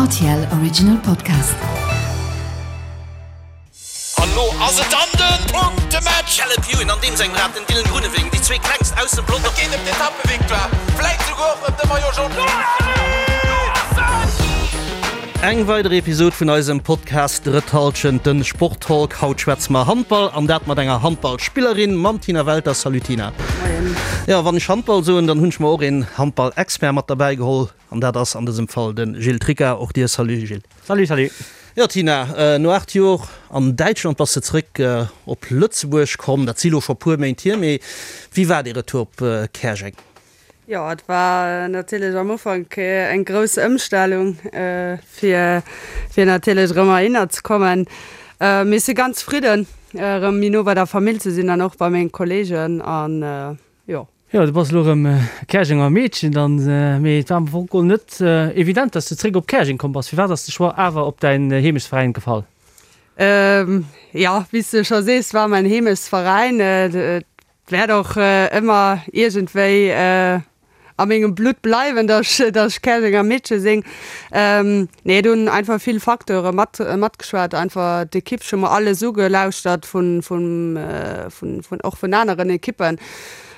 Rtl Original Podcast. An lo ass et dann den Punktematch! Caleb Ewan an deem sengem Rad den Dylan Groenewegen, déi zwee klengst aus dem Pelotong. Et geet ëm d'Etappevictoire, vläit souguer och ëm de Maillot Jaune. Eng weider Episod vun eisem Podcast Drëtt Halschent, den Sporttalk. Haut schwätze mer Handball an dat mat enger Handballspillerin, mam Tina Welter. Salut Tina. Moien. Jo, wann ech Handball soen, dann hunn ech mer och een Handballexpert mat derbäi geholl an dat ass an dësem Fall de Gilles Tricca. Och dir Salut Gilles. Salut, salut. Jo Tina, no 8 Jor an Däitschland bass de zréck op Lëtzebuerg komm. Dat si lo scho puer Méint hier, mee wéi war dee Retour op Käerjeng? Jo, et war natierlech am Ufank eng grouss Ëmstellung, fir fir natierlech erëm heihinner ze kommen. Mee ech si ganz zefridden, erëm méi no bei der Famill ze sinn an och bei menge Kolleegen an jo. Jo, du bass elo erëm Käerjenger Meedchen dann, mee et war am Fong geholl net evident, dass du zréck op Käerjeng komm bass. Firwat ass de Choix awer op däin Heemechtsveräin gefall? Jo, wéi s de scho sees, war mäin Heemechtsveräin. Et Wäert och ëmmer iergendwéi a mengem Blutt bleiwen, dass ech, dass ech Käerjenger Meedche sinn. Nee, et hunn einfach vill Facteure mat, matgeschwat. Einfach d'Ekipp, ech hu mer alles ugelauschtert vun, vun, vun, vun, och vun aneren Ekippen.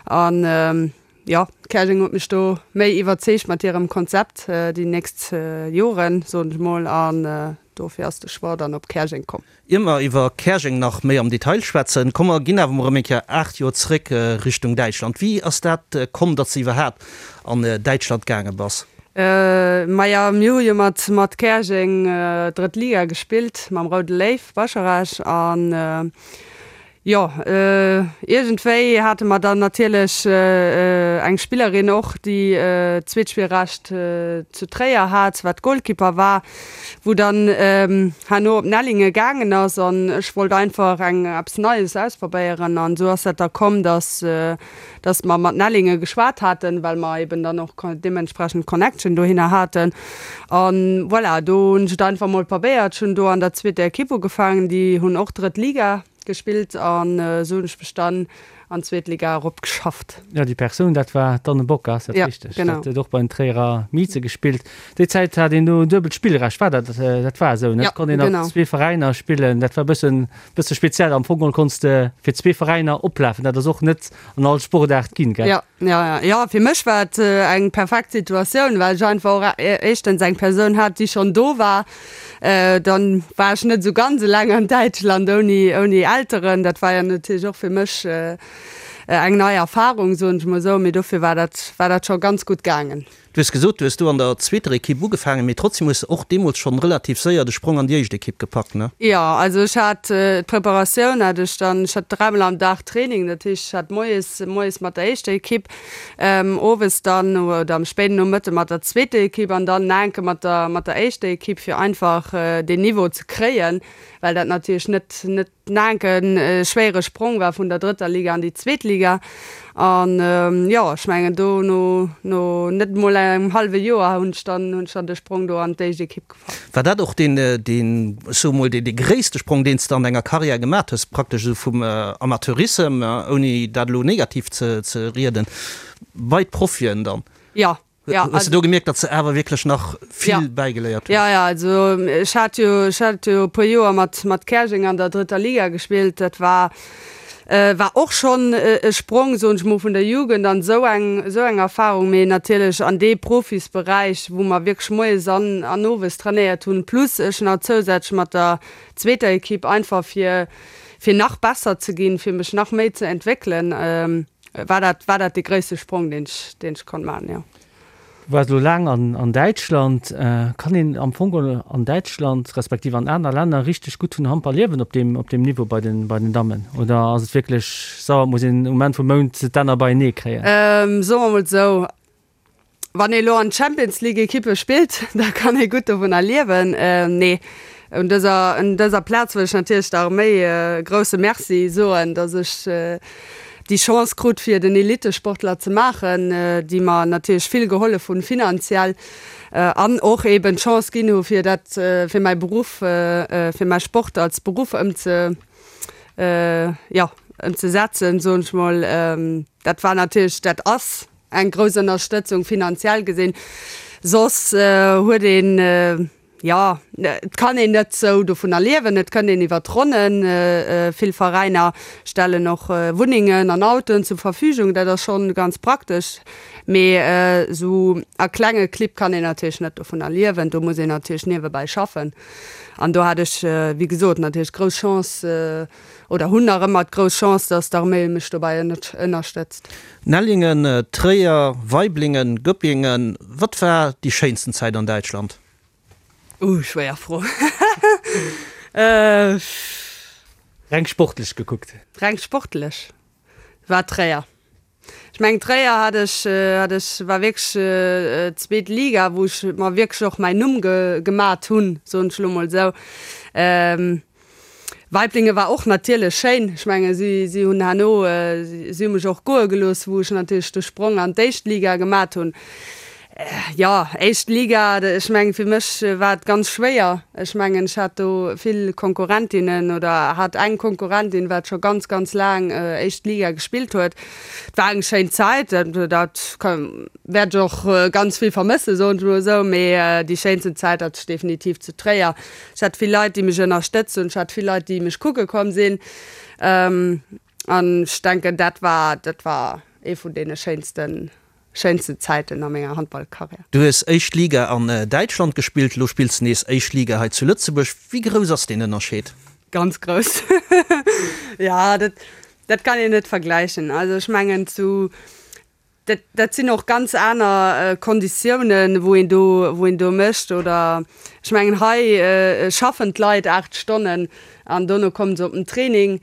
An jo, Käerjeng huet mech do méi iwwerzeegt mat hirem Konzept déi nächst Joren, soen ech mol. An dofir ass de Choix dann op Käerjeng komm. Ier mer iwwer Käerjeng nach méi am Detail schwätzen, komm mer ginn awer mol erëm eng Kéier 8 Joer zréck Richtung Däitschland. Wéi ass dat komm, datt s de iwwerhaapt an Däitschland gaange bass? Maja, mir hu jo mat mat Käerjeng drëtt Liga gespillt, mam Roude Léiw Bascharage an Jo, iergendwéi hate mer dann natierlech eng Spillerin och, déi d'Zweetspillrecht zu Tréier hat, wat Golkipper war, wou dann herno op Nellingen gaangen ass. An ech wollt einfach eng eppes Neies ausprobéieren. An esou ass dat da komm, dass dass mer mat Nellingen geschwat haten, well mer eben dann och deementsprechend Connection dohinner haten. An voilà, do hunn ech et einfach mol probéiert. Ech hunn do an der zweeter Ekipp ugefaangen, déi hunn och drëtt Liga gespillt an esou hunn ech mech dann an d'zweet Liga erop geschafft. Jo, déi Persoun, dat war d'Anne Bock, ass dat richteg? Ja, genau. Dat huet och bei den Tréierer Mieze gespillt. Déi Zäit hat een do duebelt Spillrecht, war dat, dat war esou, ne? Ja, Et konnt een genau. an zwee Veräiner spillen, dat war e bëssen, bësse speziell. Am Fong geholl konns de fir zwee Veräiner oplafen, dat ass och net an all Sportaart ginn, gell? Ja, ja, ja, ja, fir mech war et eng perfekt Situatioun, well ech einfach och éischtens eng Persoun hat, déi schonn do war. Dann war ech net esou ganz eleng an Däitschland ouni, ouni Elteren. Dat war jo natierlech och fir mech eng nei Erfarung, soen ech mol esou, mee dofir war dat, war dat scho ganz gutt gaangen. Du hues gesot, du hues do an der zweeter Ekipp ugefaangen, mee trotzdem hues de och deemools schonn relativ séier de Sprong an déi éischt Ekipp gepackt, ne? Jo, also ech hat d'Preparatioun hat ech dann, ech hat dräimol am Dag Training, dat heescht ech hat moies, moies mat der éischter Ekipp, owes dann oder am spéiden Nomëtte mat der zweeter Ekipp an dann enke mat der, mat der éischter Ekipp, fir einfach deen Niveau ze kréien, well dat natierlech net, net Naenken e schwéiere Sprong war vun der drëtter Liga an déi zweet Liga. An jo, ech mengen do no no net emol engem hallwe Joer hunn ech dann hunn ech dann de Sprong do an d'éischt Ekipp gepackt. War dat och deen deen, ech soe mol, dee gréisste Sprong, deen s de an denger Karriär gemat hues, praktesch esou vum Amateurissem, ouni dat elo negativ ze ze rieden, bei d'Profien dann? Jo, Ja, Hues du do gemierkt, datt se awer wierklech nach vill ja. bäigeléiert hues? Ja, ja, also ech hat jo, ech hat jo e puer Joer mat, mat Käerjeng an der drëtter Liga gespillt. Dat war, äh, war och schonn e Sprong, soen ech mol, vun der Jugend an esou eng, esou eng Erfahrung, mee natierlech an dee Profisberäich, wou mer wierklech moies an, an owes trainéiert hunn, plus ech nach zousätzlech mat der zweeter Ekipp, einfach fir, fir nach besser ze ginn, fir mech nach méi ze entwéckelen. Ähm, War dat, war dat dee gréisste Sprong, deen ech, deen ech konnt maachen, jo. Du waars elo laang an, an Däitschland. Kann een am Fong geholl an Däitschland, respektiv an aner Länner richteg gutt vun Handball liewen op deem, op deem Niveau bei den, bei den Dammen? Oder ass et wierklech sauer, et muss een um Enn vum Mount d'Enner beienee kréien? Soe mer mol esou, Wann ee lo an Champions League Ekippe spillt, da kann ee gutt dovunner liewen. Nee, un dëser, un dëser Plaz wëll ech natierlech der Arméi e grousse Merci soen, datt ech déi Chance krut fir den Elittesportler ze maachen, déi mer natierlech vill gehollef hunn finanziell an och eben d'Chance ginn hu fir dat, fir mäi Beruff, fir mäi Sport als Beruff ëmze, jo, ëmzesetzen, soen ech mol. Dat war natierlech, dat ass Eng grouss Ënnerstëtzung finanziell gesinn. Soss huet een. Jo, et kann een net sou dovunner liewen. Et kënnt een iwwer d'Ronnen. Vill Veräiner stellen och Wunnengen an Autoen zur Verfügung. Dat ass schonn ganz praktesch. Mee sou a klenge Clibb kann een natierlech net dovunner liewen. Do muss een natierlech niewebäi schaffen. An do hat ech, wéi gesot, natierlech grouss Chance oder hunn nach ëmmer d'grouss Chance, dass d'Arméi mech dobäi ënnerstëtzt. Nellingen, Tréier, Waiblingen, Göppingen, wat war déi schéinsten Zäit an Däitschland? Uh, schwéier Fro. Reng sportlech gekuckt. Reng sportlech war Tréier. Ech mengen Tréier hat ech, hat ech, war wierklech zweet Liga, wou ech mer wierklech och mäin Numm gemat hunn, soen ech elo mol esou. Weiblinge war och natierlech schéin. Ech menge si si hunn herno, si hu mech och goe gelooss, wou ech natierlech de Sprong an d'éischt Liga gemat hunn. Jo, éischt Liga, ech mengen fir mech war et ganz schwéier. Ech mengen ech hat do vill Konkurrentinnen oder hat eng Konkurrentin, wat scho ganz, ganz laang éischt Liga gespillt huet. Et war eng schéin Zäit, dat wäert ech och ganz vill vermëssen, soen ech mol esou, mee déi schéinsten Zäit hat ech definitiv zu Tréier. Ech hat vill Leit, déi mech ënnerstëtzt hunn. Ech hat vill Leit, déi mech kucke komm sinn. An ech denken, dat war, dat war ee vun deene schéinsten, schéinsten Zäiten a menger Handballkarriär. Du hues éischt Liga an Däitschland gespillt, elo spills de nees éischt Liga hei zu Lëtzebuerg. Wéi grouss ass deen Ënnerscheed? Ganz grouss. Jo, dat, dat kann een net vergläichen. Also ech mengen zu Dat, dat sinn och ganz aner Konditiounen, wou een do, wou een do mécht. Oder ech mengen, hei schaffen d'Leit 8 Stonnen an dono kommen se op den Training.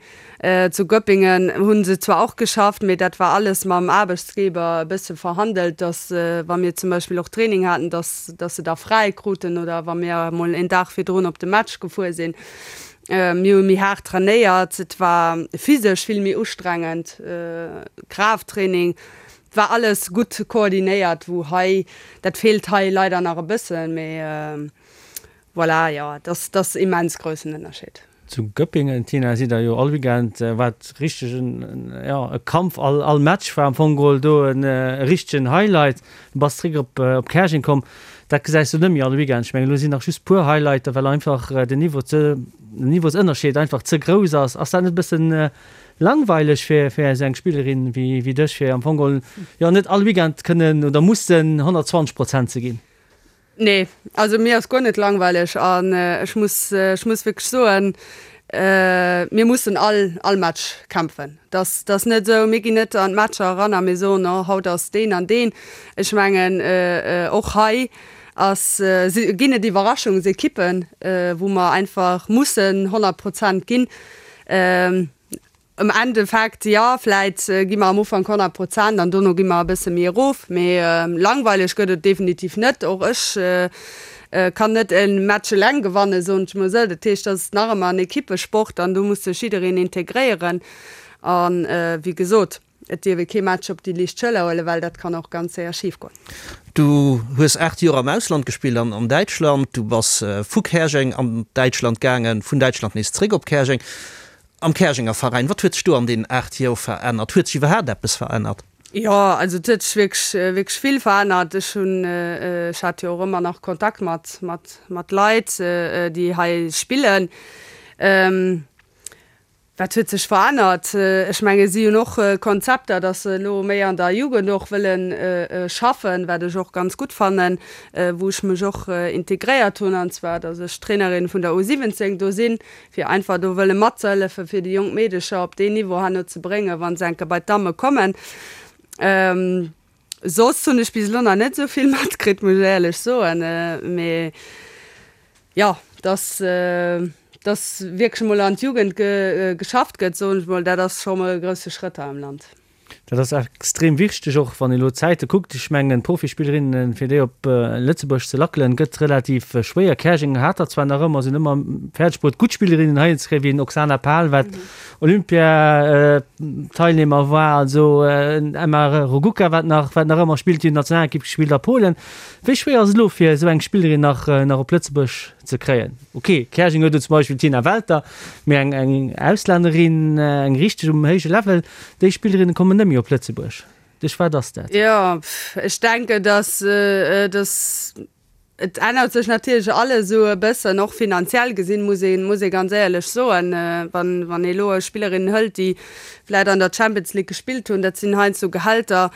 Zu Göppingen hu se zwar och geschafft, mee dat war alles mam Aarbechtsgeber e bësse verhandelt, dass, wa mir zum Beispill och Training haten, dass, dass se da fräi kruten oder wa mir emol een Dag virdrun op de Match gefuer sinn. Mir hu méi haart trainéiert, et war physesch vill méi ustrengend, Kraafttraining, et war alles gutt koordinéiert, wou hei, dat feelt hei leider nach e bëssen, mee voilà, jo, et ass, et ass immens groussen Ënnerscheed. Zu Göppingen, Tina, sidd der jo all Weekend, war et richteg en, jo, e Kampf, all, all Match war am Fong geholl do e richtegen Highlight. Du bass zréck op, op Käerjeng komm. Dat gesäis du net méi all Weekend. Ech mengen, elo sinn nach just puer Highlighter, well einfach den Niveau ze, den Niveausënnerscheed einfach ze grouss ass. Ass dat net e bëssen langweileg fir, fir esou eng Spillerin wéi, wéi dech, fir am Fong geholl, jo, net all Weekend kënnen oder mussen 120 Prozent ze ginn? Nee, also mir ass guer net langweileg an ech muss, ech muss wierklech soen, mir mussen all, all Match kämpfen. Dass, dass net esou, mir ginn net an d'Matcher eran a mir soen, oh haut ass deen an deen. Ech mengen och hei ass, si, ginn et Iwwerraschungsekippen, wou mer einfach mussen 100 Prozent ginn. Am Endeffekt, jo, vläit gi mer am Ufank 100 Prozent an dono gi mer e bësse méi erof, mee langweileg gëtt et definitiv net. Och ech kann net e Match eleng gewannen, soen ech mol esou. Dat heescht, dat ass nach ëmmer en Ekippesport an do muss sech jiddereen integréieren. A wéi gesot, et dierf ee kee Match op déi liicht Schëller huelen, well dat kann och ganz séier schif goen. Du hues 8 Joer am Ausland gespillt, an Däitschland. Du bass vu Käerjeng an Däitschland gaangen, vun Däitschland nees zréck op Käerjeng. Am Käerjenger Veräin, wat huet sech do an deenen 8 Joer verännert? Huet sech iwwerhaapt eppes verännert? Jo, also et huet sech wierklech, wierklech vill verännert. Ech hunn, ech hat jo och ëmmer nach Kontakt mat, mat, mat Leit, déi hei spillen. Wat huet sech verännert? Ech menge si hunn och Konzepter, datt se elo méi an der Jugend och wëlle schaffen, wat ech och ganz gutt fannen, wou ech mech och integréiert hunn, an zwar datt ech Trainerin vun der U 17 do sinn, fir einfach do wëlle matzehëllefen, fir déi jonk Meedecher op deen Niveau herno ze bréngen, wa se enke bei d'Damme kommen. Soss hunn ech bis elo nach net esou vill matkritt, muss ech éierlech soen. Mee jo, dass, dass wierklech emol an d'Jugend geschafft gëtt, soen ech mol, dat ass scho mol e grousse Schrëtt hei am Land. Dat ass extrem wichteg, och wann ee elo d'Zäite kuckt. Ech mengen, d'Profispillerinnen, fir déi op Lëtzebuerg ze lackelen, gëtt relativ schwéier. Käerjeng hat der zwar nach ëmmer, sinn ëmmer fäerdeg bruet, gutt Spillerinnen heihin ze kréien, wéi en Oksana Pal, wat Olympiateilnehmer war, also en Emma Rogucka, wat nach, wat nach ëmmer spillt, déi huet Nationalekipp gespillt a Polen. Wéi schwéier ass et elo, fir esou eng Spillerin nach, nach op Lëtzebuerg ze kréien? Ok, Käerjeng huet elo zum Beispill d'Tina Welter, mee eng, eng Auslännerin, eng richteg um héije Level, Déi Spillerinne kommen net méi op Lëtzebuerg. Duerch wat ass dat? Jo, ech denken, dass, dass. Et ännert sech natierlech alles esou e bëssen, och finanziell gesinn, muss ee muss ee ganz éierlech soen. Wann wann ee elo Spillerinnen hëlt, déi vläicht an der Champions League gespillt hunn, dat sinn heiansdo Gehälter,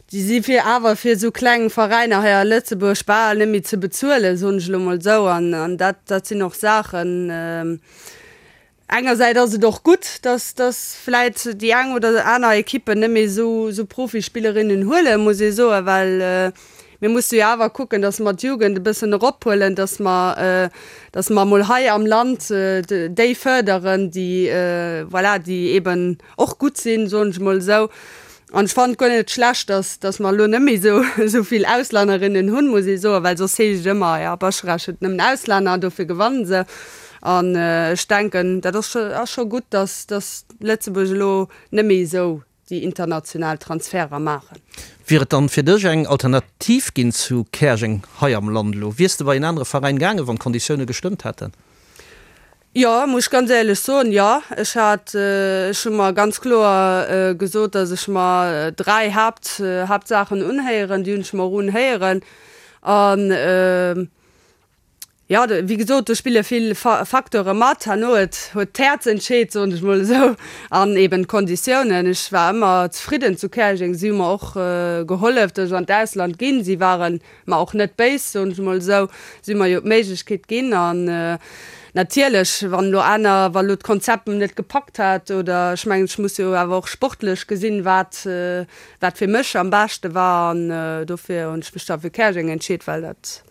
déi si fir awer fir esou kleng Veräiner hei a Lëtzebuerg bal net méi ze bezuelen, soen ech elo mol esou. An an dat dat sinn och Saachen, Engersäit ass et och gutt, dass dass vläit déi eng oder aner Ekippen net méi esou esou Profispillerinnen huelen, muss ee soen, well mir musse jo awer kucken, dass mer d'Jugend e bëssen erophuelen, dass mer dass mer emol hei am Land déi fërderen, déi voilà, déi eeben och gutt sinn, soen ech emol esou. An ech fannen et guer net schlecht, dass, dass mer elo net méi esou, esou vill Auslännerinnen hunn, muss ee soen, well soss heescht et ëmmer, jo, Bascharage huet nëmmen Auslänner, dofir gewannen se. An ech denken, dat ass scho, ass scho gutt, dass, dass Lëtzebuerg elo net méi esou déi international Transferter maachen. Wier et dann fir dech eng Alternativ ginn zu Käerjeng hei am Land elo? Wiers de bei en anere Veräin gaangen, wann d'Konditioune gestëmmt hätten? Jo, muss ech ganz éierlech soen, jo. Ech hat, ech hu mer ganz kloer gesot, datt ech mer 3 Haapt, Haaptsaachen unhéieren. Déi hunn ech mer och unhéieren. An, jo, wéi gesot, do spille vill Facteure mat. Herno huet, huet d'Häerz entscheet, soen ech mol esou, an eben d'Konditiounen. Ech war ëmmer zefridden zu Käerjeng. Si hu mer och gehollef, datt ech an d'Ausland ginn. Si waren Mer och net béis, soen ech emol esou, si mer jo d'Méiglechkeet ginn. An natierlech, wann elo aner, wa elo d'Konzept net gepackt hätt oder ech mengen, ech muss jo awer och sportlech gesinn, wat, wat fir mech am beschte war. An dofir hunn ech mech da fir Käerjeng entscheet, well dat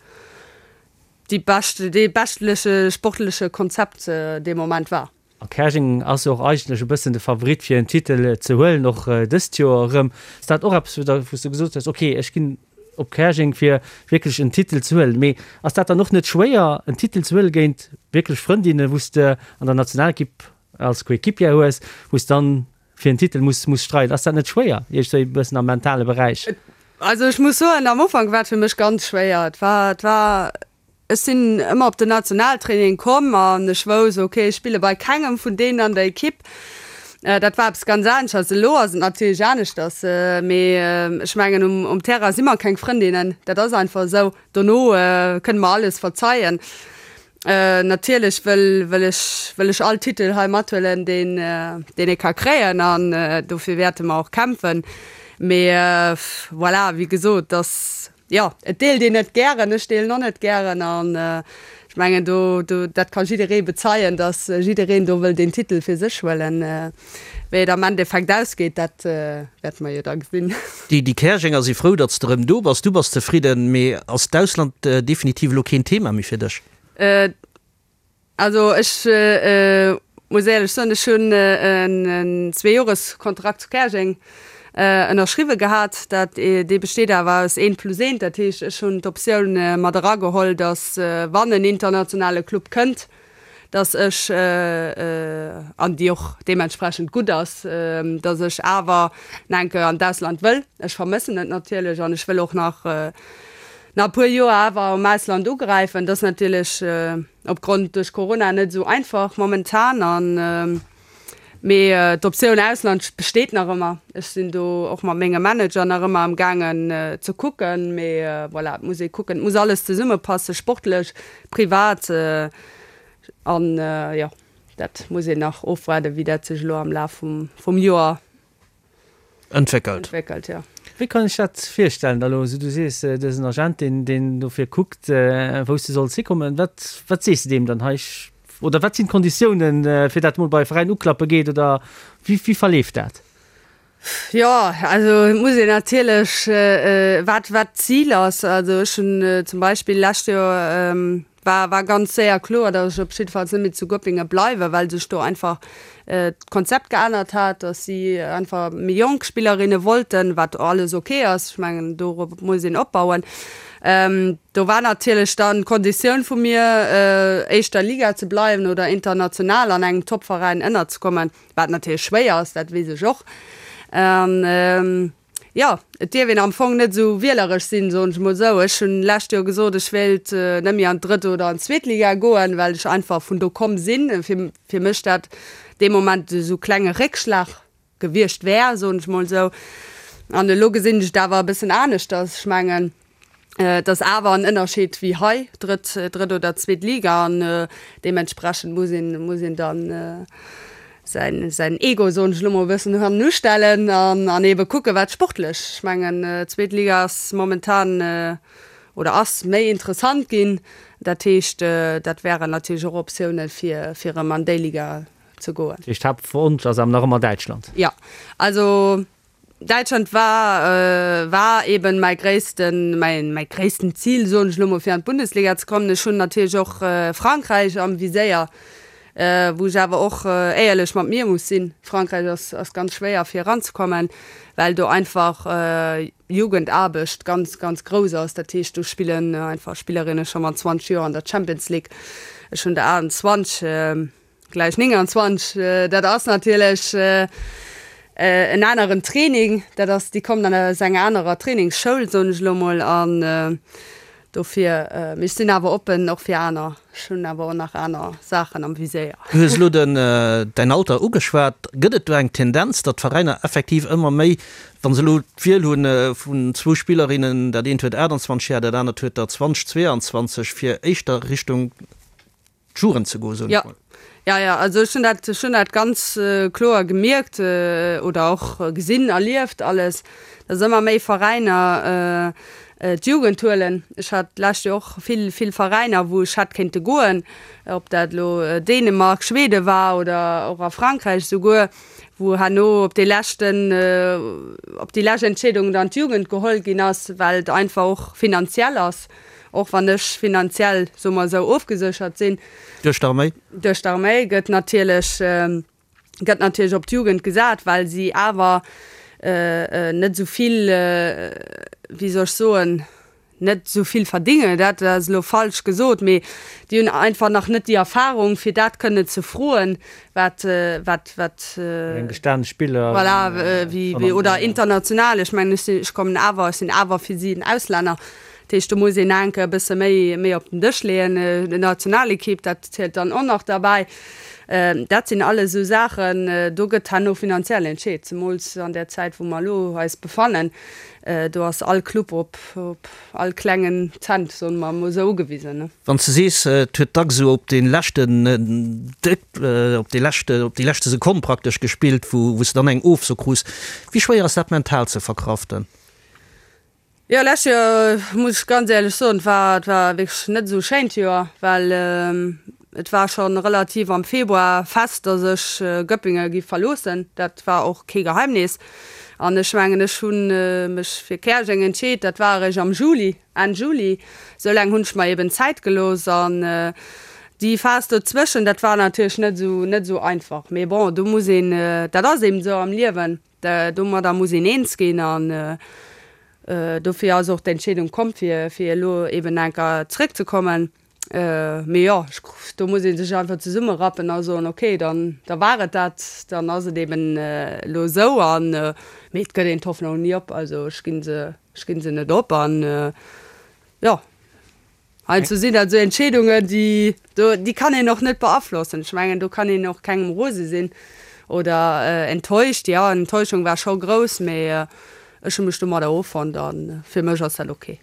déi bescht, dee beschtleche sportleche Konzept dee Moment war. A Käerjeng ass jo och eigentlech e bëssen de Favorit fir en Titel ze huelen, och dëst Joer erëm. Ass dat och eppes, wou s du gesot hues, ok, ech ginn op Käerjeng fir wierklech en Titel ze huelen. Mee ass dat dann och net schwéier en Titel ze huele géint wierklech Frëndinne wou s de an der Nationalekipp als Coéquipière hues, wou s dann fir en Titel muss muss streiden? Ass dat net schwéier iergendwéi e bëssen am mentale Beräich? Also ech muss soen, am Ufank war et fir mech ganz schwéier. Et war, et war Ech sinn ëmmer op den Nationaltraining komm an ech wouss, ok, ech spille bei kengem vun deenen an der Ekipp. Dat war eppes ganz aneschters. Elo ass et natierlech aneschters, mee ech mengen, um Terrain si mer keng Frëndinnen, dat ass einfach esou. Dono kënne mer alles verzeien. Natierlech wëll wëll ech wëll ech all Titel hei mathuelen, deen deen ee ka kréien an dofir wäerte mer och kämpfen. Mee voilà, wéi gesot, dass Jo, et deelt een net gären, ech deelen och net gären an ech mengen do, do, dat ka jidderee bezeien, datt jiddereen do wëll deen Titel fir sech huelen. Wéi et am Endeffekt ausgeet, dat wäerte mer jo da gesinn. Déi, déi Käerjenger si frou, datt s de erëm do bass. Du bass zefridden, mee ass d'Ausland definitiv elo keen Thema méi fir dech? Also ech muss éierlech soen, ech hunn en Zweejoreskontrakt zu Käerjeng ënnerschriwwe gehat. Dat, dee besteet awer aus eent plus eent. Dat heescht, ech hunn d'Optioun mat erageholl, datt wann en internationale Club kënnt, datt ech, an déi och deementsprechend gutt ass, datt ech awer nach eng Kéier an d'Ausland wëll. Ech vermëssen et natierlech an ech wëll och nach nach e puer Joer awer am Ausland ugräifen. Dat ass natierlech opgrond duerch Corona net esou einfach momentan an mee d'Optioun Ausland besteet nach ëmmer. Ech sinn do och mat mengem Manager nach ëmmer am gaangen ze kucken, mee voilà, et muss ee kucken, et muss alles zesummepassen, sportlech, privat an jo, dat muss een nach ofwaarden, wéi dat sech elo am Laf vum vum Joer Entwéckelt. Entwéckelt, jo. Wéi kann ech dat virstellen da elo? Du sees, du hues en Agent, deen, deen dofir kuckt, wou s de solls hikommen. Wat, wat sees de deem dann hei? Oder wat sinn d'Konditiounen, fir dat mol bei e Veräin uklappe geet? Oder wéi, wéi verleeft dat? Jo, also et muss een natierlech, wat, wat d'Zil ass. Also ech hunn zum Beispill lescht Joer, War war ganz séier kloer, datt ech op jiddefalls net méi zu Göppingen bleiwen, well sech do einfach d'Konzept geännert hat, datt si einfach méi jonk Spillerinne wollten, wat alles ok ass. Ech mengen, dorop muss een opbauen. Do war natierlech dann d'Konditioun vu mir, éischter Liga ze bleiwen oder international an engem Topveräin ënnerzekommen, wat natierlech schwéier ass, dat weess ech och. Jo, et dierf een am Fong net esou wieleresch sinn, soen ech mol esou. Ech hunn d'lescht Joer gesot, ech wéilt net méi an d'drëtt oder an d'zweet Liga goen, well ech einfach vun do komm sinn. Fir, fir mech dat dee Moment esou klenge Réckschlag gewiescht wär, soen ech mol esou. An elo gesinn ech et awer e bëssen aneschters. Ech mengen. Et ass awer en Ënnerscheed wéi hei, drëtt, drëtt oder zweet Liga an deementsprechend muss een, muss een dann säin, säin Ego, soen ech elo mol, e bëssen hannen ustellen an, an eebe kucken, wat sportlech, ech mengen, zweet Liga ass momentan oder ass méi interessant ginn. Dat heescht, dat wären natierlech och Optiounen, fir, fir erëm an déi Liga ze goen. Dat heescht, Haaptwonsch ass awer nach ëmmer Däitschland? Jo, also Däitschland war war eben mäi gréissten mäi mäi gréissten Zil, soen ech elo mol, fir an d'Bundesliga ze kommen. Ech hunn natierlech och Frankräich am Viséier, wou ech awer och éierlech mat mir muss sinn, Frankräich ass ass ganz schwéier fir eranzekommen, well do einfach Jugendaarbecht ganz ganz grouss ass. Dat heescht do spillen einfach Spillerinne scho mat 20 Joer an der Champions League. Ech hunn der 28. Gläich 29, dat ass natierlech en aneren Training, dat ass, déi kommen dann aus enger anerer Trainingsschoul, soen ech elo mol, an dofir, mee ech sinn awer oppen och fir aner, ech hunn awer och nach aner Saachen am Viséier. Du hues elo den, däin Alter ugeschwat. Gëtt et do eng Tendenz, datt d'Veräiner effektiv ëmmer méi, wa se elo d'Wiel hu vun zwou Spillerinnen, dat eent huet 28 Jar, dat anert huet der 20, 22, fir éischter Richtung d'Jugend ze goen, soen ech mol. Ja, ja, also ech hunn dat, ech hunn dat ganz kloer gemierkt oder och gesinn, erlieft alles, dass ëmmer méi Veräiner d'Jugend huelen. Ech hat d'lescht Joer och vill, vill Veräiner, wou ech hätt kéinte goen, ob dat elo Dänemark, Schweden war oder och a Frankräich esouguer, wou herno op dee leschten, op déi lescht Entscheedung dann d'Jugend geholl ginn ass, well et einfach och finanziell ass. Och wann ech finanziell, soe mer esou, ofgeséchert sinn. Duerch d'Arméi? Duerch d'Arméi gëtt natierlech, gëtt natierlech op d'Jugend gesat, well si awer net esou vill, wéi soll ech soen, net esou vill verdingen, dat ass elo falsch gesot, mee déi hunn einfach nach net déi Erfahrung, fir dat kënnen ze froen, wat, wat, wat. Eng gestane Spiller. Voilà, wéi, oder international. Ech mengen, ech sinn, ech kommen awer, ech sinn awer fir si en Auslänner. Dat heescht, do muss een enke e bësse méi, méi op den Dësch leeën. D'Nationalekipp, dat zielt dann och nach derbäi. Dat sinn alles esou Saachen, do gëtt herno finanziell entscheet, zemools an där Zäit, wou mer elo eis befannen. Do ass all Club op, op all klengen Cent, soe mer emol esou, ugewisen. Wann s de sees, et huet dacks esou op dee leschten Dréck, op dee leschte, op déi leschte Sekonn praktesch gespillt, wou, wou s de dann eng Ofso krus, wéi schwéier ass dat mental ze verkraften? Jo, lescht Joer, muss ech ganz éierlech soen, et war, et war wierklech net esou e schéint Joer, well et war scho relativ am Februar fest, datt ech Göppingen giff verloossen. Dat war och kee Geheimnis. An ech mengen, ech hu mech fir Käerjeng entscheet, dat war eréischt am Juli, Enn Juli. Esou laang hunn ech mer eben Zäit gelooss. An déi Phas dozwëschen, dat war natierlech net esou, net esou einfach. Mee bon, do muss een, dat ass eben esou am Liewen. Domadder muss een eens ginn an dofir ass och d'Entscheedung komm, fir elo eben enker zréckzekommen. Mee jo, do muss ee sech einfach zesummerappen a soen, okay, dann da war et dat, dann ass et eben elo esou. An mee et gëtt een d'Hoffnung ni op. Also ech gi se, ech gi se net op an jo. Heiansdo sinn dat esou Entscheedungen, déi do, déi kann een och net beaflossen. Ech mengen, do kann een och kengem rose sinn oder enttäuscht. Jo, Enttäuschung war scho grouss, mee ech hu mech domadder offonnt a fir mech ass dat ok.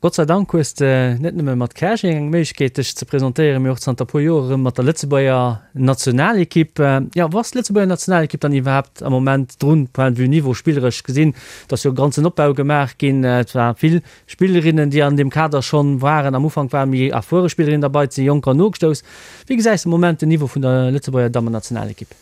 Gott sei Dank hues de net nëmme mat Käerjeng eng Méiglechkeet dech ze presentéieren, mee och zanter puer Joer erëm mat der Lëtzebuerger Nationalekipp. Jo, wou ass d'Lëtzebuerger Nationalekipp dann iwwerhaapt am Moment drun, point de vue Niveau, spilleresch gesinn? Et ass jo e ganzen Opbau gemaach ginn, et war vill Spillerinnen, déi an deem Kader schonn waren. Am Ufank ware méi erfuere Spillerinnen derbei, et si Jonker nogestouss. Wéi gesäis de am Moment den Niveau vun der Lëtzebuerger Dammennationalekipp?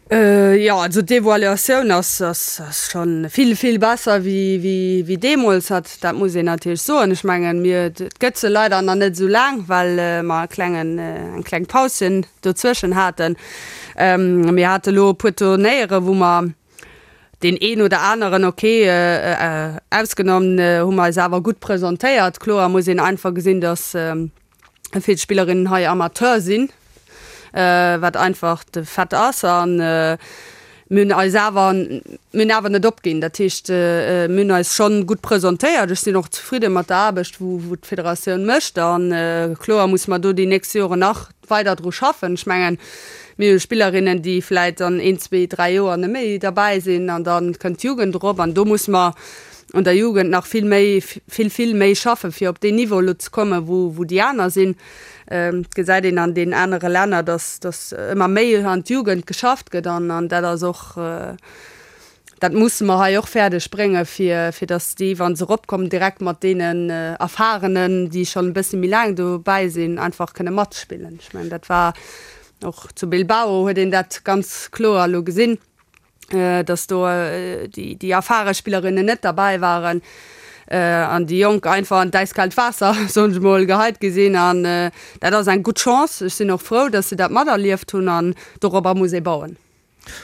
Jo, also d'Evaluatioun ass schonn vill, vill besser wéi deemools. Dat muss een natierlech soen. Ech mengen, mir, et gëtt se leider nach net esou laang, well mer e klengen, eng kleng Pauschen dozwëschen haten. Mir hate lo e puer Turnéiere wou mer, Deen een oder aneren, ok, ausgenommen, hu mer eis awer gutt presentéiert. Kloer muss een einfach gesinn, datt vill Spillerinnen hei Amateur sinn, wat einfach de Fait ass. A mir hunn eis awer, mir hunn awer net opginn. Dat heescht, mir hunn eis schonn gutt presentéiert. Ech sinn och zefridde mat der Aarbecht, wou d'Federatioun mécht. A kloer muss mer do déi nächst Joren nach weider dru schaffen. Ech mengen, mir hu Spillerinnen, déi vläit an een, zwee, dräi Joer net méi derbäi sinn an da kënnt d'Jugend erop an do muss mer. un der Jugend nach vill méi, vill, vill méi schaffen, fir op deen Niveau elo ze kommen, wou, wou déi aner sinn. Et gesäit een an deenen anere Länner, dass, dass ëmmer méi an d'Jugend geschafft gëtt an, an dat ass och, dat musse mer hei och fäerdeg bréngen, fir, fir dass déi, wa se eropkommen, direkt mat deenen Erfahrenen, déi schonn e bësse méi laang dobäi sinn, einfach kënne matspillen. Ech mengen, dat war och zu Bilbao huet een dat ganz kloer elo gesinn. dass do déi erfare Spillerinnen net derbäi waren an déi Jonk einfach an d'äiskaalt Waasser, soen ech mol, geheit gi sinn. An dat ass eng gutt Chance. Ech sinn och frou, dass se dat materlieft hunn an dorobber muss ee bauen.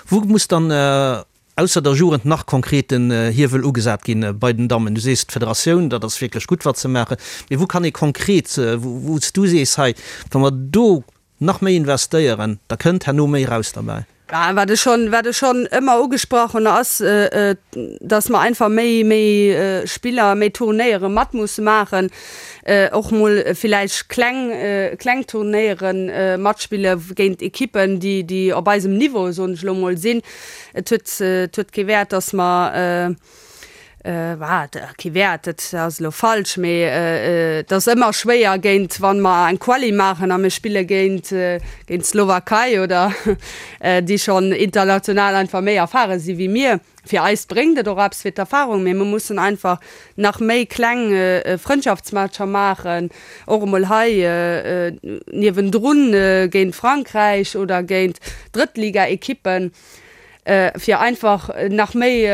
Wou muss dann ausser der Jugend nach konkret den Hiewel ugesat ginn bei den Dammen? Du sees d'Federatioun, dat ass wierklech gutt wat se maachen, mee wou kann ee konkret, wou s du sees, hei wa mer do Nach méi investéieren, da kënnt herno méi raus derbäi. Wat ech schonn, wat ech schonn ëmmer ugesprach hunn, ass, dass mer einfach méi, méi Spiller, méi Turnéiere mat musse maachen, och mol villäicht kleng, kleng Turnéiere matspille géint Ekippen, déi, déi op eisem Niveau, soen ech elo mol, sinn. Et huet, et huet kee Wäert, dass mer, Wat kee Wäert, dat ass elo falsch, mee et ass ëmmer schwéier géint, wa mer eng Quali maachen a mir spille géint géint d'Slowakei oder déi schonn international einfach méi erfare si wéi mir. Fir eis bréngt et och eppes fir d'Erfarung, mee mir mussen einfach nach méi kleng Frëndschaftsmatcher maachen, och emol hei niewendrun géint Frankräich oder géint Drëttligaekippen. fir einfach nach méi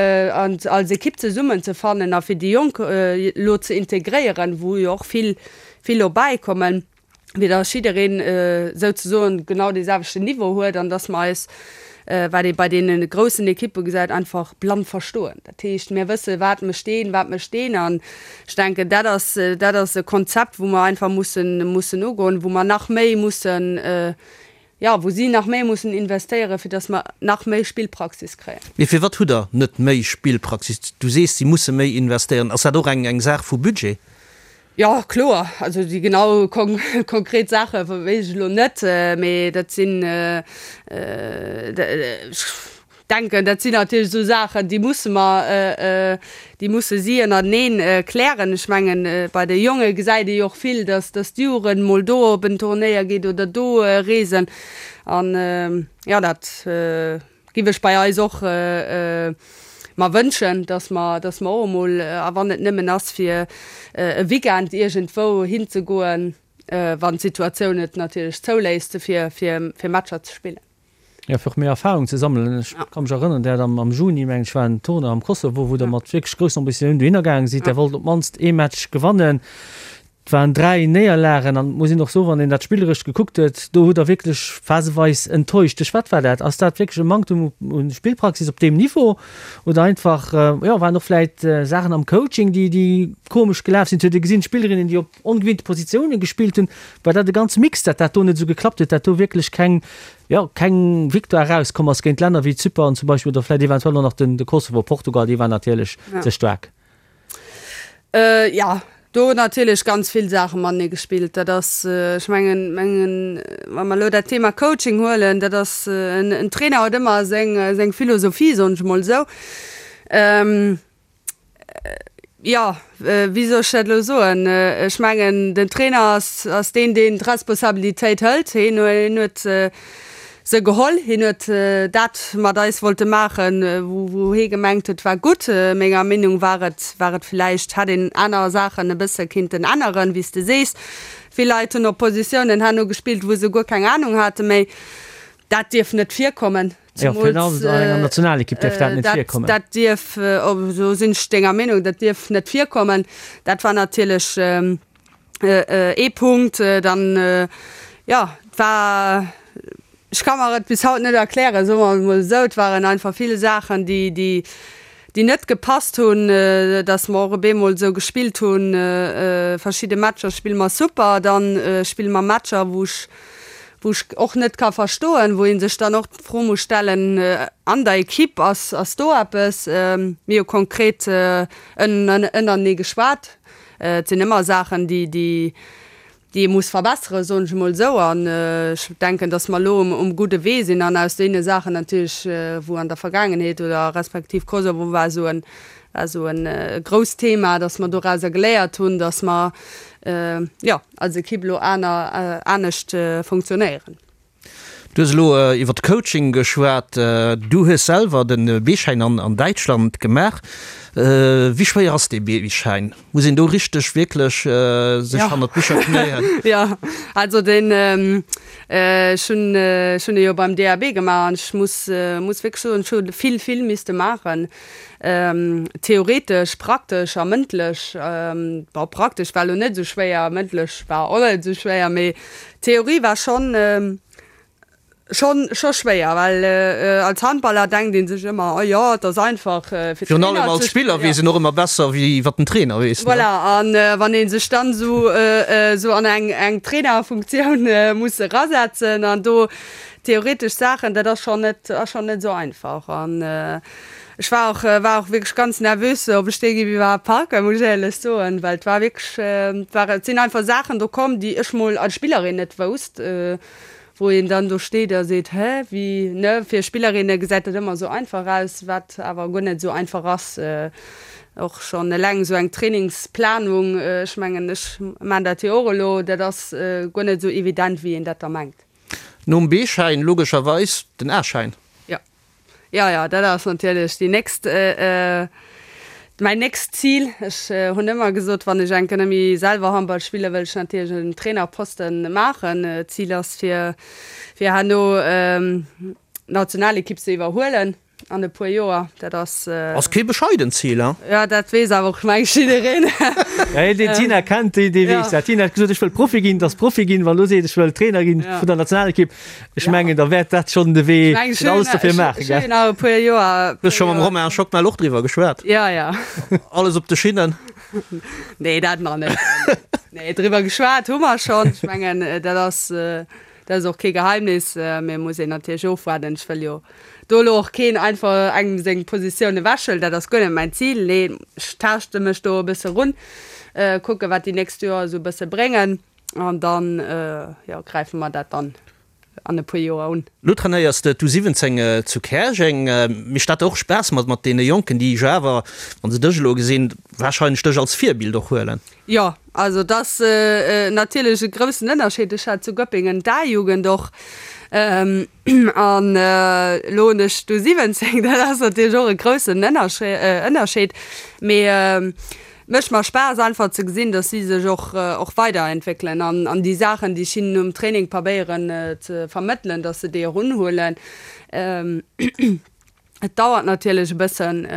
als Ekipp zesummen ze fannen a fir déi Jonk elo ze integréieren, wou jo och vill, vill elo bäikommen, fir datt jiddereen souzesoen genau dee selwechten Niveau huet an datt mer eis, wat ee bei deene groussen Ekippe gesäit, einfach blann verstoen. Dat heescht, mir wësse wat mécht deen, wat mécht deen an ech denken, dat ass, dat ass e Konzept, wou mer einfach mussen, mussen ugoen, wou mer nach méi mussen, jo, wou si nach méi mussen investéieren, fir datt mer nach méi Spillpraxis kréien. Mee firwat hutt Der net méi Spillpraxis? Du sees, si musse méi investéieren. Ass dat och eng Saach vu Budget? Jo, kloer. Also déi genau konkret Saache weess ech elo net, mee dat sinn, ech denken, dat sinn natierlech esou Saachen, déi musse mer, déi musse si ënnerteneen klären. Ech mengen, bei de Jonge gesäit ee jo och vill, dass, dass d'Jugend mol do op en Turnéier geet oder do reesen. An, jo, dat giff ech bei eis och mer wënschen, dass mer, dass mer och emol, a wann et nëmmen ass fir e Weekend iergendwou hinzegoen, wann d'Situatioun et natierlech zouléisst, fir, fir, fir Matcher ze spillen. Jo, fir och méi Erfahrung ze sammelen. Ech ka mech erënneren, Der hat am Juni, mengen ech, war en Tournoi am Kosovo, wou Der mat wierklech groussen Ambitiounen dohinner gaange sidd. Der wollt op d'mannst ee Match gewannen. Et waren 3 Néierlagen an et muss een och soen, wann een dat spilleresch gekuckt huet, do hutt Der wierklech phaseweis enttäuscht. Duerch wat war dat? Ass dat wierklech e Manktum u Spillpraxis op deem Niveau oder einfach, jo, waren och vläit Saachen am Coaching, déi, déi komesch gelaf sinn? Et huet ee gesinn, Spillerinnen, déi op ongewinnte Positioune gespillt hunn. War dat e ganze Mix, dat dat do net esou geklappt huet, dat do wierklech keng, jo, keng Victoire erauskomm ass géint Länner wéi Zypern zum Beispill oder vläit eventuell och nach den, de Kosovo, Portugal, déi waren natierlech ze staark. Jo, do hunn natierlech ganz vill Saache matenee gespillt. Dat ass, ech mengen, mengen, wa mer elo dat Thema Coaching huelen, dat ass, en Trainer huet ëmmer seng, seng Philosophie, soen ech emol esou. Jo, wéi soll ech dat elo soen? Ech mengen, den Trainer ass, ass deen, deen d'Responsabilitéit hëlt. Hien huet se geholl. Hien huet dat mat eis wollte maachen, wou, wou hie gemengt huet, war gutt. Menger Meenung war et, war et villäicht, hätt een aner Saachen e bësse kinnten änneren, wéi s de sees. Vill Leit hunn op Positiounen herno gespillt, wou se guer keng Anung hate méi. Dat dierf net virkommen. Jo, virun allem an enger Nationalekipp dierf dat net virkommen. Dat dierf, do sinn ech denger Meenung, dat dierf net virkommen. Dat war natierlech ee Punkt. Dann, jo, et war, ech ka mer et bis haut net erklären, soe mer et emol esou, et waren einfach vill Saachen, déi, déi, déi net gepasst hunn, dass mer och op eemol esou gespillt hunn, verschidde Matcher spille mer super, dann spille mer Matcher, wou ech, wou ech och net ka verstoen, wou ee sech dann och d'Fro muss stellen, an der Equipe, ass, ass do eppes? Mir hu konkret ënnerenee geschwat. Et sinn ëmmer Saachen, déi, déi, déi ee muss verbesseren, soen ech emol esou. An ech denken, datt mer elo um, um gudde Wee sinn an aus deene Saachen natierlech, wou an der Vergaangenheet oder respektiv Kosovo war esou en. War esou en grousst Thema, dass mer dorauser geléiert hunn, dass mer, jo, als Ekipp elo aner, anescht funktionéieren. Du hues elo iwwer de Coaching geschwat. Du hues selwer de B-Schäin an Däitschland gemaach. Wéi schwéier ass dee B-Schäin? Muss een do richteg wierklech sech hannert d'Bicher knéien? Jo, also deen, ech hunn, ech hunn e jo beim DAB gemaach an ech muss, muss wierklech soen, ech hu vill, vill misste maachen. Theoretesch, praktesch a mëndlech. Bon, praktesch war elo net esou schwéier, mëndlech war och net esou schwéier, mee Theorie war schonn schonn scho schwéier, well als Handballer denkt ee sech ëmmer, oh jo, et ass einfach fir Virun allem Trainer als ze Spiller weess een och ëmmer besser wéi wat den Trainer weess, ne? Voilà, an wann ee sech dann esou esou an eng eng Trainerfunktioun muss erasetzen an do theoretesch Saachen, dat ass schonn net ass schonn net esou einfach. An Ech war och war och wierklech ganz nervös, ob ech dee géif iwwerhaapt packen, muss ech éierlech soen, well et war wierklech, et war, et sinn einfach Saachen do komm, déi ech mol als Spillerin net wousst, wou een dann do steet a seet, hä, wéi, ne? Fir Spillerinne gesäit dat ëmmer esou einfach aus, wat awer guer net esou einfach ass. Och schonn eleng esou eng Trainingsplanung, ech mengen, ech man dat jo och elo, dat ass guer net esou evident, wéi een dat da mengt. Nom B-Schäin logescherweis den A-Schäin. Jo. Jo, jo, dat ass natierlech déi nächst, mäin nächst Zil. Ech hunn ëmmer gesot, wann ech enke net méi selwer Handball spillen, wëll ech natierlech en Trainerposten maachen. D'Zil ass fir, fir herno d'Nationalekipp ze iwwerhuelen an e puer Joer. Dat ass. Ass kee bescheident Zil, hein? Jo, dat weess awer och, meng ech, jiddereen. Ja, een deen d'Tina kennt, dee weess dat. D'Tina huet gesot, ech wëll Profi ginn, et ass Profi ginn. Wann elo seet, ech wëll Trainer ginn vun der Nationalekipp, Ech mengen, da wäert dat schonn de Wee fir alles dofir maachen, gell? Nach e puer Joer. Du hues scho mam Romain Schockmel och driwwer geschwat? Jo, jo. Alles op de Schinnen? Nee, dat nach net. Nee, driwwer geschwat hu mer schonn. Ech mengen, dat ass, dat ass och kee Geheimnis. Mee muss een natierlech ofwaarden. Ech wëll jo do elo och keen einfach engem seng Positioun ewechhuelen. Dat ass guer net mäin Zil. Nee, ech taaschte mech do e bësse run, kucke wat déi nächst Joer esou e bësse bréngen. An dann, jo, gräife mer dat dann an e puer Joer un. Lo trainéiers de d'U17 zu Käerjeng. Mécht dat och Spaass mat mat deene Jonken, déi jo awer, wa se dech elo gesinn, warscheinlech dech als Virbild och huelen? Jo, also et ass natierlech e groussen Ënnerscheed. Ech hat zu Göppingen d'A-Jugend och an elo hunn ech d'U17. Dat ass natierlech och e groussen Ënnerscheed. Mee Mécht mer Spaass einfach ze gesinn, dass si sech och och weiderentwéckelen an an déi Saachen, déi ech hinnen um Training probéieren ze vermëttelen, dass se déi och unhuelen. Et dauert natierlech e bëssen,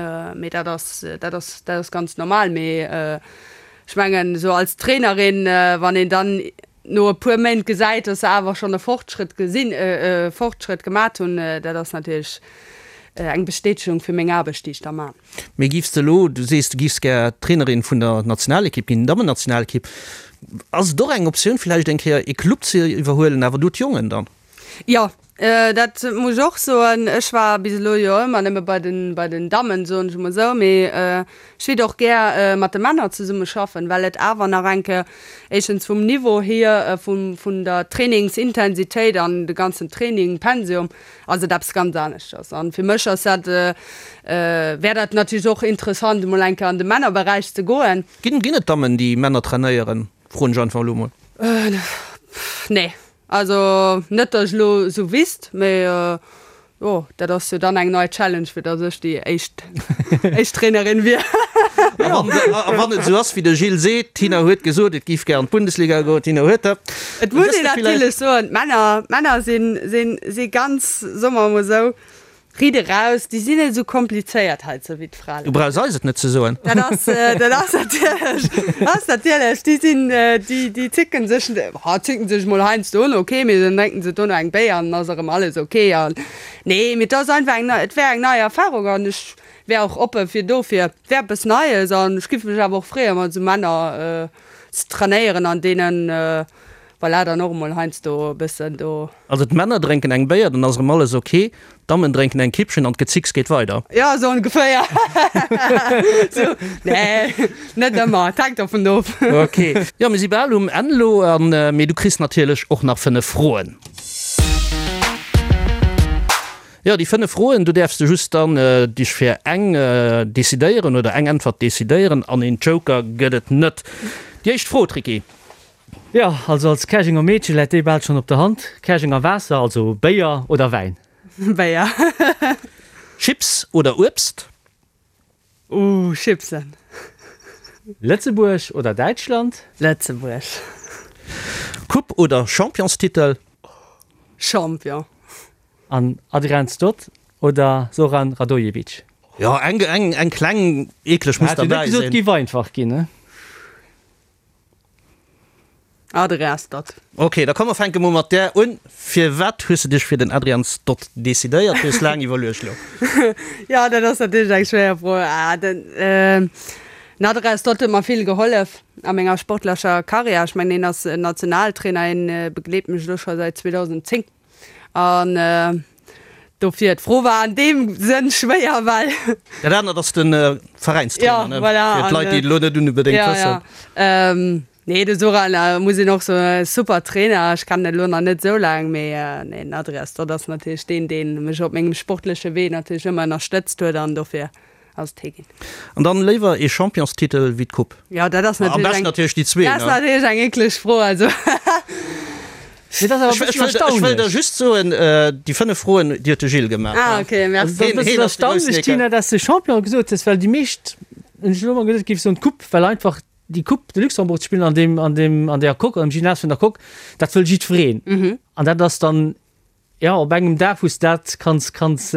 mee dat ass dat ass dat ass ganz normal. Mee ech mengen esou als Trainerin, wann een dann no e puer Méint gesäit, dass se awer schonn e Fortschrëtt gesinn, e Fortschrëtt gemat hunn, dat ass natierlech eng Bestätegung fir meng Aarbecht, déi ech da man. Mee giffs de elo, du sees du giffs gär Trainerin vun der Nationalekipp ginn, Dammennationalekipp, ass et och eng Optioun villäicht eng Kéier ee Club ze iwwerhuelen, awer do d'Jongen dann? Jo, dat muss ech och soen. Ech war bis elo jo ëmmer nëmme bei den, bei den Dammen, soen ech emol esou, mee ech wéilt och gär mat de Männer zesumme schaffen, well et awer nach eng Kéier éischtens vum Niveau hier, vum, vun der Trainingsintensitéit an de ganzen Training, Pensum, ass et eppes ganz aneschters. An fir mech ass dat, wär dat natierlech och interessant emol eng Kéier an de Männerberäich ze goen. Ginn ginn et Dammen déi Männer trainéieren, froen ech einfach elo mol. Nee, also net datt ech elo esou wisst, mee jo dat ass jo dann eng nei Challenge fir datt ech déi éischt éischt Trainerin wier. A wann a wann et esou ass wéi de Gilles seet, d'Tina huet gesot et géif gär an d'Bundesliga goen, d'Tina huet dat. Et muss een natierlech soen, d'Männer, d'Männer sinn, sinn, si ganz, soe mer emol esou, riit eraus, déi sinn net esou komplizéiert heizou wéi d'Fraen. Du brauchs eis et net ze soen. Dat ass, dat ass natierlech, ass natierlech, déi sinn, déi, déi zicken sech, ha zicken sech emol heiansdo un, ok, mee dann drénken se dono eng Béier an dann ass erëm alles ok. An nee, mee et ass einfach eng nei, et wär eng nei Erfarung an ech wär och oppe fir dofir. Et wär eppes Neies an ech giff mech awer och freeë mat esou Männer ze trainéieren an deenen voilà dann och emol heiansdo e bëssen do. Also d'Männer drénken eng Béier, dann ass erëm alles ok, d'Dammen drénken eng Kippchen an d'Gezicks geet weider. Jo, esou ongeféier. Sou, nee, net ëmmer, et hänkt dervun of. Ok, jo mir si bal um Enn elo, an mee du kriss natierlech och nach 5 Froen. Jo, déi 5 Froen, do däerfs de just dann dech fir eng decidéieren oder eng Äntwert decidéieren an een Joker gëtt et net. Déi éischt Fro, Tricky. Jo, also als Käerjenger Meedche läit déi bal schonn op der Hand, Käerjenger Waasser, also Béier oder Wäin? Béier. Chips oder Uebst? Ooh, Chipsen. Lëtzebuerg oder Däitschland? Lëtzebuerg. Coupe oder Championstitel? Champion. An Adrian Stott oder Zoran Radojevic? Jo, eng, eng, eng kleng eekleg muss Hat jo net derbäi gesot, sinn. giff einfach ginn, ne? Adrian Stott. Ok, da komm mer fänke mol mat där un. Firwat hues de dech fir den Adrian Stott decidéiert? Du hues laang iwwerluecht elo. Jo, dat ass natierlech eng schwéier Fro. Den Adrian Stott huet mer vill gehollef a menger sportlecher Karriär. Ech mengen, hien ass Nationaltrainer, hien begleet mech elo scho säit 2010. An dofir, d'Fro war an deem Sënn schwéier, well. Dat anert ass de Veräinstrainer, ne? Ja, voilà. Fir d'Leit, déi et elo net unbedéngt wëssen. Ja, ja. Nee, de Zoran, muss een och soen, super Trainer. Ech kennen en elo nach net esou laang, mee nee, den Adrias Toth ass natierlech deen, dee mech op mengem sportleche Wee natierlech ëmmer ënnerstëtzt huet an dofir ass et hie ginn. An dann léiwer ee Championstitel wéi d'Coupe? Jo, dat ass Am beschten natierlech déi zwee, dat ass ne? natierlech eng eekleg Fro, also. Mee dat ass awer e bëssen Ech wëll der erstaunlech. just soen, déi 5 Froen, déi huet de Gilles gemaach. Ah, ok, merci. Dat ass e bëssen erstaunlech, Tina, dass de Champion gesot hues, well déi meescht, hunn ech elo emol gesot, géife soen d'Coupe, well einfach déi Coupe de Luxembourg ze spillen an deem, an deem, an där Coque, am Gymnase vun der Coque, dat wëll jiddwereen. An dat ass dann, jo, op engem Dag, wou s de dat kanns, kanns,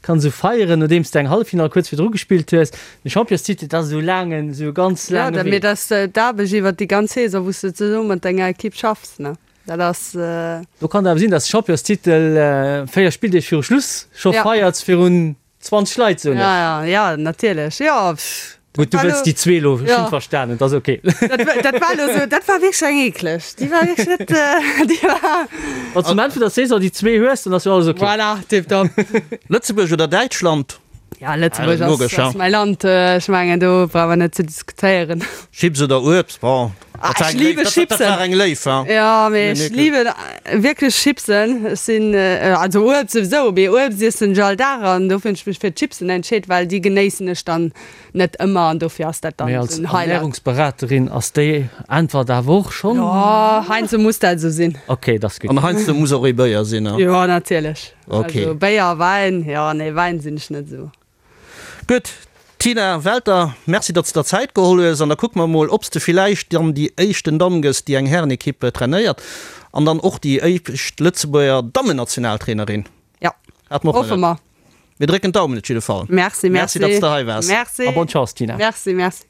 kanns esou feieren, nodeems de eng Halleffinall kuerz virdru gespillt hues. De Championstitel, dat ass esou laangen, esou e ganz Jo, laange dat, Wee. mee dat ass d'Aarbecht iwwert déi ganz Saison, wou s de zesumme mat denger Ekipp schaffs, ne? Dat ass. Do kann et awer sinn, dass de Championstitel 4 Spilldeeg viru Schluss scho Ja. feiers virun 20 Leit, soen ech. Ja, ja, ja, natierlech, jo, pff. Gutt, du wëlls déi zwee elo, ech hunn verstanen, et ass ok. Dat, dat war elo esou, dat war wierklech eng eekleg, déi war wierklech net, déi war. Wann s du um Enn vun der Saison déi zwee hues, dann ass jo alles ok. Voilà, tiptop. Lëtzebuerg oder Däitschland? Ja, Lëtzebuerg ass, Logesch, ass mäi Land, ech mengen, do brauch mer net ze diskutéieren. Chips oder Uebst, bon. Ah, ech liebe Chipsen. Dat war eng Léif, ha? Ja, mee ech liebe wierklech Chipsen. Ech sinn, also Uebst souwisou, mee Uebst iessen ech all Dag an dofir hunn ech mech fir d'Chipsen entscheet, well déi genéissen ech dann net ëmmer an dofir ass dat dann Mee als esou en Highlight. Ernährungsberaterin ass déi Äntwert awer och schonn. Jo, heiansdo muss dat esou sinn. Ok, dat ass gutt. An heiansdo muss och ee Béier sinn, ha? Jo, natierlech. Ok. Also Béier, Wäin, jo, nee, Wäin sinn ech net esou. Gutt, Tina Welter, Merci, datt s de der Zäit geholl hues. An da kucke mer emol, ob s de villäicht dann déi éischten Damm gëss, déi eng Härenekipp trainéiert an dann och déi éischt Lëtzebuerger Dammennationaltrainerin. Jo, Hat mer och hoffe nach net. mer. Mir drécken d'Daumen op jidde Fall. Merci, Merci, merci. datt s de hei waars. Merci. A bonne Chance, Tina. Merci, merci.